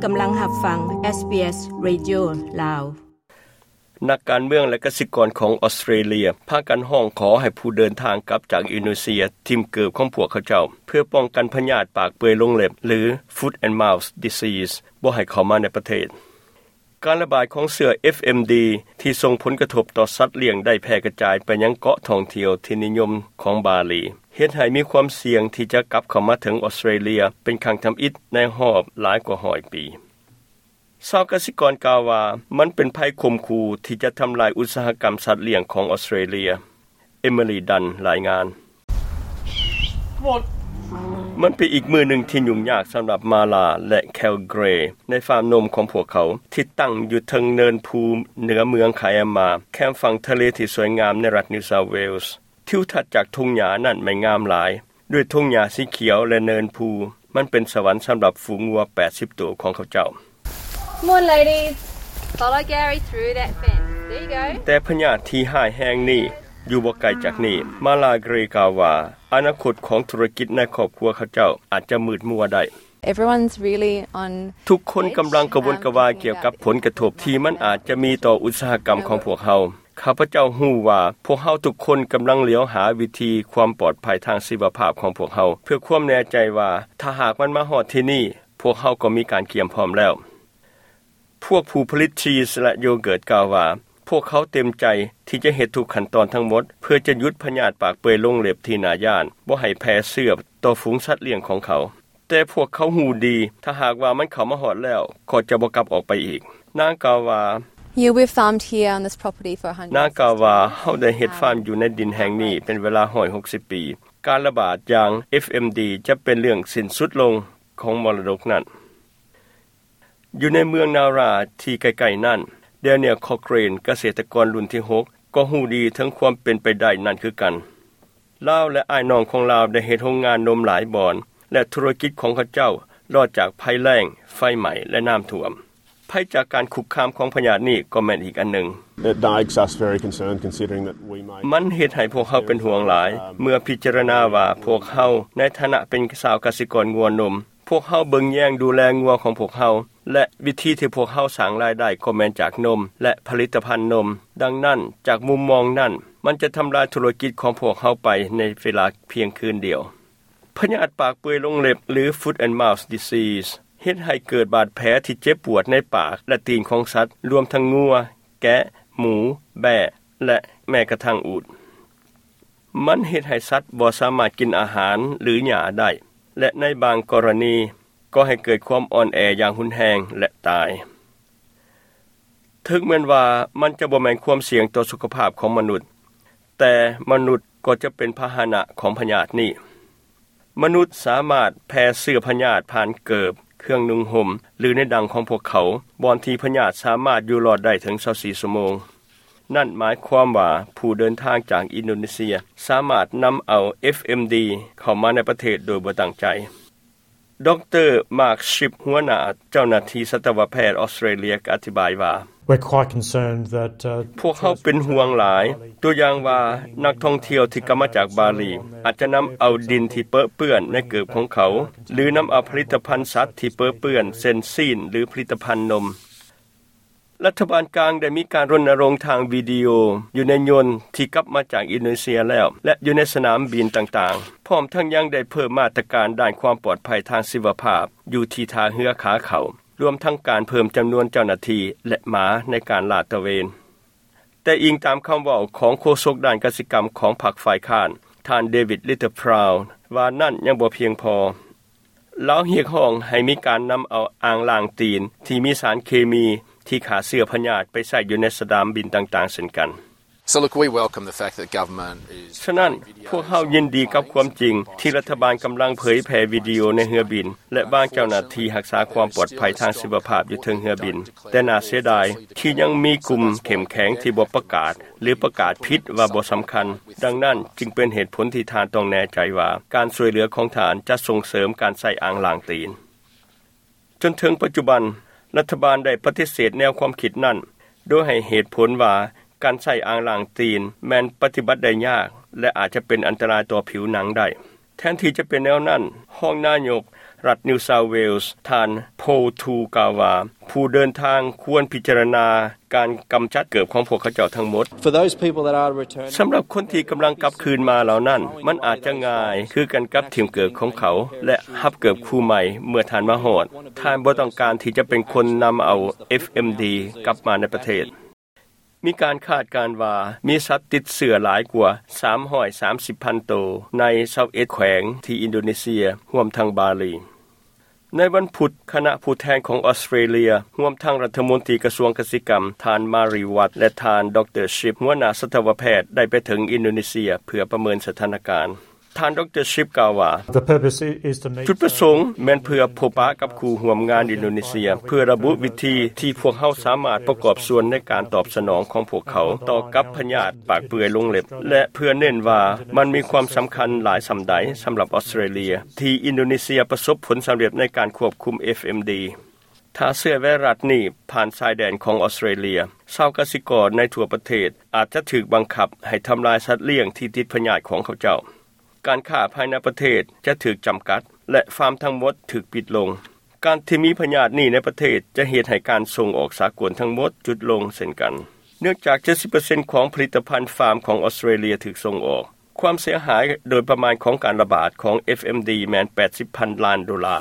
ກຳລັງຮັບຟັງ SBS Radio ລາວ. ນັກການເມືອງ ແລະ ກະສິກອນຂອງອອສເຕຣເລຍ ພາກັນຮ້ອງຂໍໃຫ້ຜູ້ເດີນທາງກັບຈາກອິນໂດເນເຊຍ ຖິ້ມເກີບຂອງພວກເຂົາເຈົ້າ ເພື່ອປ້ອງກັນພະຍາດປາກເປືອຍລົງເລັບ ຫຼື Foot and Mouth Disease ບໍ່ໃຫ້ເຂົ້າມາໃນປະເທດ. ການລະບາດຂອງເຊື້ອ FMD ທີ່ສົ່ງຜົນກະທົບຕໍ່ສັດລ້ຽງ ໄດ້ແຜ່ກະຈາຍໄປຍັງເກາະທ່ອງທ່ຽວທີ່ນິຍົມຂອງບາລີ, ເຮັດໃຫ້ມີຄວາມສ່ຽງທີ່ຈະກັບເຂົ້າມາເຖິງອອສເຕຣເລຍເປັນຄັ້ງທຳອິດໃນຮອບຫຼາຍກວ່າຮ້ອຍປີ. ຊາວກະສິກອນກ່າວວ່າ ມັນເປັນໄພຂົ່ມຂູ່ທີ່ຈະທຳລາຍອຸດສາຫະກຳສັດລ້ຽງຂອງອອສເຕຣເລຍ. ເອມິລີ ດັນ ລາຍງານ. ມັນເປັນອີກມື້ໜຶ່ງທີ່ຫຍຸ້ງຍາກສຳລັບມາລາ ແລະ ແຄວເກຣ ໃນຟາມນົມຂອງພວກເຂົາ ທີ່ຕັ້ງຢູ່ເທິງເນີນພູເໜືອເມືອງຄາແອມມາ ແຄມຝັ່ງທະເລທີ່ສວຍງາມໃນລັດ New South Wales. ທິວທັດຈາກທົ່ງຫຍ້ານັ້ນແມ່ນງາມຫຼາຍ, ດ້ວຍທົ່ງຫຍ້າສີຂຽວ ແລະ ເນີນພູ. ມັນເປັນສະຫວັນສຳລັບຝູງງົວແປດສິບໂຕຂອງເຂົາເຈົ້າ. Come on, ladies. Follow Gary through that fence. There you go. ແຕ່ພະຍາດທີ່ຮ້າຍແຮງນີ້ຢູ່ບໍ່ໄກຈາກນີ້. ມາລາ ເກຣ ກ່າວວ່າ ອະນາຄົດຂອງທຸລະກິດໃນຄອບຄົວເຂົາເຈົ້າອາດຈະມືດມົວໄດ້. Everyone's really on ທຸກຄົນກຳລັງກະວົນກະວາຍກ່ຽວກັບຜົນກະທົບທີ່ມັນອາດຈະມີຕໍ່ອຸດສາຫະກຳຂອງພວກເຮົາ. ຂ້າພະເຈົ້າຮູ້ວ່າພວກເຮົາທຸກຄົນກຳລັງຫຼຽວຫາວິທີຄວາມປອດໄພທາງຊີວະພາບຂອງພວກເຮົາ ເພື່ອຄວາມແນ່ໃຈວ່າຖ້າຫາກມັນມາຮອດທີ່ນີ້, ພວກເຮົາກໍມີການກຽມພ້ອມແລ້ວ. ພວກຜູ້ຜະລິດຊີສ ແລະ ໂຢເກີດກ່າວວ່າ ພວກເຂົາເຕັມໃຈທີ່ຈະເຮັດທຸກຂັ້ນຕອນທັງໝົດ ເພື່ອຈະຢຸດພະຍາດປາກເປືອຍລົງເລັບທີ່ໜ້າຢ້ານບໍ່ໃຫ້ແຜ່ເຊື້ອຕໍ່ຝູງສັດລ້ຽງຂອງເຂົາ. ແຕ່ພວກເຂົາຮູ້ດີ, ຖ້າຫາກວ່າມັນເຂົ້າມາຮອດແລ້ວ, ກໍຈະບໍ່ກັບອອກໄປອີກ. ນາງກ່າວວ່າ, You, we've farmed here on this property for a hundred. ນາງກ່າວວ່າ, ເຮົາໄດ້ເຮັດຟາມຢູ່ໃນດິນແຫ່ງນີ້ເປັນເວລາຮ້ອຍຫົກສິບປີ. ການລະບາດຢ່າງ FMD ຈະເປັນເລື່ອງສິ້ນສຸດລົງຂອງມໍລະດົກນັ້ນ. ຢູ່ໃນເມືອງນາຣາທີ່ໃກ້ໆນັ້ນ, ແດນຽວ ຄອເກຣນ ກະເສດຕະກອນລຸ້ນທີຫົກ ກໍຮູ້ດີເຖິງຄວາມເປັນໄປໄດ້ນັ້ນຄືກັນ. ລາວ ແລະ ອ້າຍນ້ອງຂອງລາວໄດ້ເຮັດໂຮງງານນົມຫຼາຍບ່ອນ ແລະ ທຸລະກິດຂອງເຂົາເຈົ້າລອດຈາກໄພແລ້ງ, ໄຟໄໝ້ ແລະ ນ້ຳຖ້ວມ. ໄພຈາກການຄຸກຄາມຂອງພະຍາດນີ້ກໍແມ່ນອີກອັນໜຶ່ງ. It makes us very concerned considering that we may ມັນເຮັດໃຫ້ພວກເຮົາເປັນຫ່ວງຫຼາຍ ເມື່ອພິຈາລະນາວ່າພວກເຮົາໃນຖານະເປັນຊາວກະສິກອນງົວນົມ, ພວກເຮົາເບິ່ງແຍງດູແລງົວຂອງພວກເຮົາ ແລະ ວິທີທີ່ພວກເຮົາສ້າງລາຍໄດ້ກໍແມ່ນຈາກນົມ ແລະ ຜະລິດຕະພັນນົມ. ດັ່ງນັ້ນ, ຈາກມຸມມອງນັ້ນ, ມັນຈະທຳລາຍທຸລະກິດຂອງພວກເຮົາໄປໃນເວລາພຽງຄືນດຽວ. ພະຍາດປາກເປືອຍລົງເລັບ ຫຼື Foot and Mouth Disease ເຮັດໃຫ້ເກີດບາດແຜທີ່ເຈັບປວດໃນປາກ ແລະ ຕີນຂອງສັດ, ລວມທັງງົວ, ແກະ, ໝູ, ແບ້ ແລະ ແມ້ກະທັ້ງອູດ. ມັນເຮັດໃຫ້ສັດບໍ່ສາມາດກິນອາຫານ ຫຼື ຫຍ້າໄດ້ ແລະ ໃນບາງກໍລະນີກໍໃຫ້ເກີດຄວາມອ່ອນແອຢ່າງຮຸນແຮງ ແລະ ຕາຍ. ເຖິງແມ່ນວ່າມັນຈະບໍ່ແມ່ນຄວາມສ່ຽງຕໍ່ສຸຂະພາບຂອງມະນຸດ, ແຕ່ມະນຸດກໍຈະເປັນພາຫະນະຂອງພະຍາດນີ້. ມະນຸດສາມາດແຜ່ເຊື້ອພະຍາດຜ່ານເກີບ, ເຄື່ອງນຸ່ງຫົ່ມ ຫຼື ໃນດັງຂອງພວກເຂົາ, ບ່ອນທີ່ພະຍາດສາມາດຢູ່ລອດໄດ້ເຖິງຊາວສີ່ຊົ່ວໂມງ. ນັ້ນໝາຍຄວາມວ່າຜູ້ເດີນທາງຈາກອິນໂດເນເຊຍສາມາດນຳເອົາ FMD ເຂົ້າມາໃນປະເທດໂດຍບໍ່ຕັ້ງໃຈ. ດຣ. ມາກ ຊິບ ຫົວໜ້າເຈົ້າໜ້າທີ່ສັດຕະວະແພດອອສເຕຣເລຍກໍອະທິບາຍວ່າ, We're quite concerned that, uh, ພວກເຮົາເປັນຫ່ວງຫຼາຍ, ຕົວຢ່າງວ່ານັກທ່ອງທ່ຽວທີ່ກັບມາຈາກບາລີອາດຈະນຳເອົາດິນທີ່ເປິເປື້ອນໃນເກີບຂອງເຂົາ ຫຼື ນຳເອົາຜະລິດຕະພັນສັດທີ່ເປິເປື້ອນ ເຊັ່ນ ຊີ້ນ ຫຼື ຜະລິດຕະພັນນົມ. ລັດຖະບານກາງໄດ້ມີການລົນນະລົງທາງວິດີໂອຢູ່ໃນຍົນທີ່ກັບມາຈາກອິນໂດເນເຊຍແລ້ວ ແລະ ຢູ່ໃນສະໜາມບິນຕ່າງໆ, ພ້ອມທັງຍັງໄດ້ເພີ່ມມາດຕະການດ້ານຄວາມປອດໄພທາງຊີວະພາບຢູ່ທີ່ທ່າເຮືອຂາເຂົ້າ, ລວມທັງການເພີ່ມຈຳນວນເຈົ້າໜ້າທີ່ ແລະ ໝາໃນການລາດຕະເວນ. ແຕ່ອີງຕາມຄຳເວົ້າຂອງໂຄສົກດ້ານກະສິກຳຂອງພັກຝ່າຍຄ້ານ, ທ່ານ ເດວິດ ລິດເຕີພຣາວ ວ່ານັ້ນຍັງບໍ່ພຽງພໍ. ລາວຮຽກຮ້ອງໃຫ້ມີການນຳເອົາອ່າງລ້າງຕີນທີ່ມີສານເຄມີທີ່ຂ້າເຊື້ອພະຍາດໄປໃຊ້ຢູ່ໃນສະໜາມບິນຕ່າງໆເຊັ່ນກັນ. So look, we welcome the fact that government is ສະນັ້ນ, ພວກເຮົາຍິນດີກັບຄວາມຈິງທີ່ລັດຖະບານກຳລັງເຜີຍແຜ່ວິດີໂອໃນເຮືອບິນ ແລະ ວາງເຈົ້າໜ້າທີ່ຮັກສາຄວາມປອດໄພທາງຊີວະພາບຢູ່ເທິງເຮືອບິນ. ແຕ່ໜ້າເສຍດາຍທີ່ຍັງມີກຸ່ມເຂັ້ມແຂງທີ່ບໍ່ປະກາດ ຫຼື ປະກາດຜິດວ່າບໍ່ສຳຄັນ. ດັ່ງນັ້ນຈຶ່ງເປັນເຫດຜົນທີ່ທ່ານຕ້ອງແນ່ໃຈວ່າການຊ່ວຍເຫຼືອຂອງທ່ານຈະສົ່ງເສີມການໃຊ້ອ່າງລ້າງຕີນ. ຈົນເຖິງປັດຈຸບັນ, ລັດຖະບານໄດ້ປະຕິເສດແນວຄວາມຄິດນັ້ນ, ໂດຍໃຫ້ເຫດຜົນວ່າການໃຊ້ອ່າງລ້າງຕີນແມ່ນປະຕິບັດໄດ້ຍາກ ແລະ ອາດຈະເປັນອັນຕະລາຍຕໍ່ຜິວໜັງໄດ້. ແທນທີ່ຈະເປັນແນວນັ້ນ, ຮອງນາຍົກ ລັດ New South Wales ທ່ານ Paul Tu ກ່າວວ່າ ຜູ້ເດີນທາງຄວນພິຈາລະນາການກຳຈັດເກີບຂອງພວກເຂົາເຈົ້າທັງໝົດ. For those people that are returning, ສຳລັບຄົນທີ່ກຳລັງກັບຄືນມາເຫຼົ່ານັ້ນ ມັນອາດຈະງ່າຍຄືກັນກັບຖິ້ມເກີບຂອງເຂົາ ແລະ ຮັບເກີບຄູ່ໃໝ່ເມື່ອທ່ານມາຮອດ. ທ່ານບໍ່ຕ້ອງການທີ່ຈະເປັນຄົນນຳເອົາ ເອັຟເອັມດີ ກັບມາໃນປະເທດ. ມີການຄາດການວ່າມີສັດຕິດເຊື້ອຫຼາຍກວ່າສາມຮ້ອຍສາມສິບພັນໂຕໃນຊາວເອັດແຂວງທີ່ອິນໂດເນເຊຍ, ຮວມທັງບາລີ. ໃນວັນພຸດ, ຄະນະຜູ້ແທນຂອງອອສເຕຣເລຍ, ຮວມທັງລັດຖະມົນຕີກະຊວງກະສິກຳ, ທ່ານ Mary Watt ແລະ ທ່ານ ດຣ Shipp ຫົວໜ້າສັດຕະວະແພດ ໄດ້ໄປເຖິງອິນໂດເນເຊຍເພື່ອປະເມີນສະຖານະການ. ທ່ານ ດຣ Shipp ກ່າວວ່າ The purpose is to meet ຈຸດປະສົງແມ່ນເພື່ອພົບປະກັບຄູ່ຮ່ວມງານອິນໂດເນເຊຍ ເພື່ອລະບຸວິທີທີ່ພວກເຮົາສາມາດປະກອບສ່ວນໃນການຕອບສະໜອງຂອງພວກເຂົາຕໍ່ກັບພະຍາດປາກເປື່ອຍລົງເລັບ ແລະ ເພື່ອເນັ້ນວ່າມັນມີຄວາມສຳຄັນຫຼາຍສ່ຳໃດສຳລັບອອສເຕຣເລຍ ທີ່ອິນໂດເນເຊຍປະສົບຜົນສຳເລັດໃນການຄວບຄຸມ ເອັຟເອັມດີ. ຖ້າເຊື້ອໄວຣັສນີ້ຜ່ານຊາຍແດນຂອງອອສເຕຣເລຍ, ຊາວກະສິກອນໃນທົ່ວປະເທດອາດຈະຖືກບັງຄັບໃຫ້ທຳລາຍສັດລ້ຽງທີ່ຕິດພະຍາດຂອງເຂົາເຈົ້າ. ການຄ້າພາຍໃນປະເທດຈະຖືກຈຳກັດ ແລະ ຟາມທັງໝົດຖືກປິດລົງ. ການທີ່ມີພະຍາດນີ້ໃນປະເທດຈະເຮັດໃຫ້ການສົ່ງອອກສາກົນທັງໝົດຢຸດລົງເຊັ່ນກັນ, ເນື່ອງຈາກເຈັດສິບເປີເຊັນຂອງຜະລິດຕະພັນຟາມຂອງອອສເຕຣເລຍຖືກສົ່ງອອກ. ຄວາມເສຍຫາຍໂດຍປະມານຂອງການລະບາດຂອງ ເອັຟເອັມດີ ແມ່ນແປດສິບພັນລ້ານໂດລາ.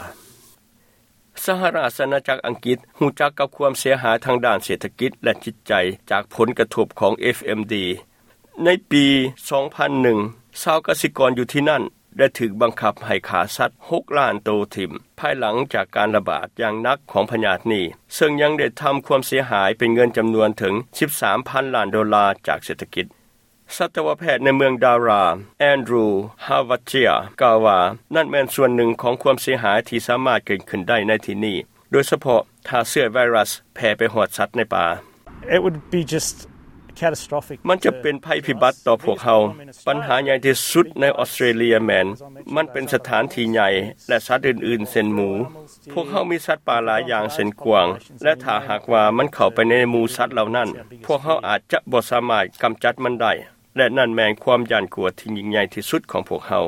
ສະຫະລາຊະອານາຈັກອັງກິດຮູ້ຈັກກັບຄວາມເສຍຫາຍທາງດ້ານເສດຖະກິດ ແລະ ຈິດໃຈຈາກຜົນກະທົບຂອງ ເອັຟເອັມດີ. ໃນປີສອງພັນໜຶ່ງ, ຊາວກະສິກອນຢູ່ທີ່ນັ້ນໄດ້ຖືກບັງຄັບໃຫ້ຂ້າສັດຫົກລ້ານໂຕຖິ້ມ ພາຍຫຼັງຈາກການລະບາດຢ່າງໜັກຂອງພະຍາດນີ້, ເຊິ່ງຍັງໄດ້ທຳຄວາມເສຍຫາຍເປັນເງິນຈຳນວນເຖິງສິບສາມພັນລ້ານໂດລາຈາກເສດຖະກິດ. ສັດຕະວະແພດໃນເມືອງດາຣາ Andrew Havatia ກ່າວວ່າ ນັ້ນແມ່ນສ່ວນໜຶ່ງຂອງຄວາມເສຍຫາຍທີ່ສາມາດເກີດຂຶ້ນໄດ້ໃນທີ່ນີ້, ໂດຍສະເພາະຖ້າເຊື້ອໄວຣັສແຜ່ໄປຮອດສັດໃນປ່າ. It would be just catastrophic. ມັນຈະເປັນໄພພິບັດຕໍ່ພວກເຮົາ. ບັນຫາໃຫຍ່ທີ່ສຸດໃນອອສເຕຣເລຍແມ່ນ ມັນເປັນສະຖານທີ່ໃຫຍ່ ແລະ ສັດອື່ນໆ ເຊັ່ນໝູ. ພວກເຮົາມີສັດປ່າຫຼາຍຢ່າງເຊັ່ນກວາງ ແລະ ຖ້າຫາກວ່າມັນເຂົ້າໄປໃນໝູສັດເຫຼົ່ານັ້ນ, ພວກເຮົາອາດຈະບໍ່ສາມາດກຳຈັດມັນໄດ້ ແລະ ນັ້ນແມ່ນຄວາມຢ້ານກົວທີ່ຍິ່ງໃຫຍ່ທີ່ສຸດຂອງພວກເຮົາ.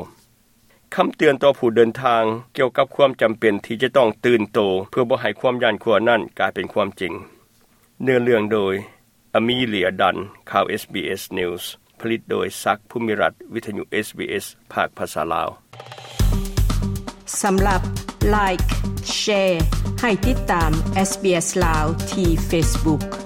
ຄຳເຕືອນຕໍ່ຜູ້ເດີນທາງກ່ຽວກັບຄວາມຈຳເປັນທີ່ຈະຕ້ອງຕື່ນໂຕເພື່ອບໍ່ໃຫ້ຄວາມຢ້ານກົວນັ້ນກາຍເປັນຄວາມຈິງ. ເນື້ອເລື່ອງໂດຍ ອາມີເລຍ ດັນ, ຂ່າວ ເອສບີເອສ News, ຜະລິດໂດຍ ສັກ ພູມິລັດ, ວິທະຍຸ ເອສບີເອສ ພາກພາສາລາວ. ສຳລັບ Like, Share ໃຫ້ຕິດຕາມ SBS ລາວ ທີ່ Facebook.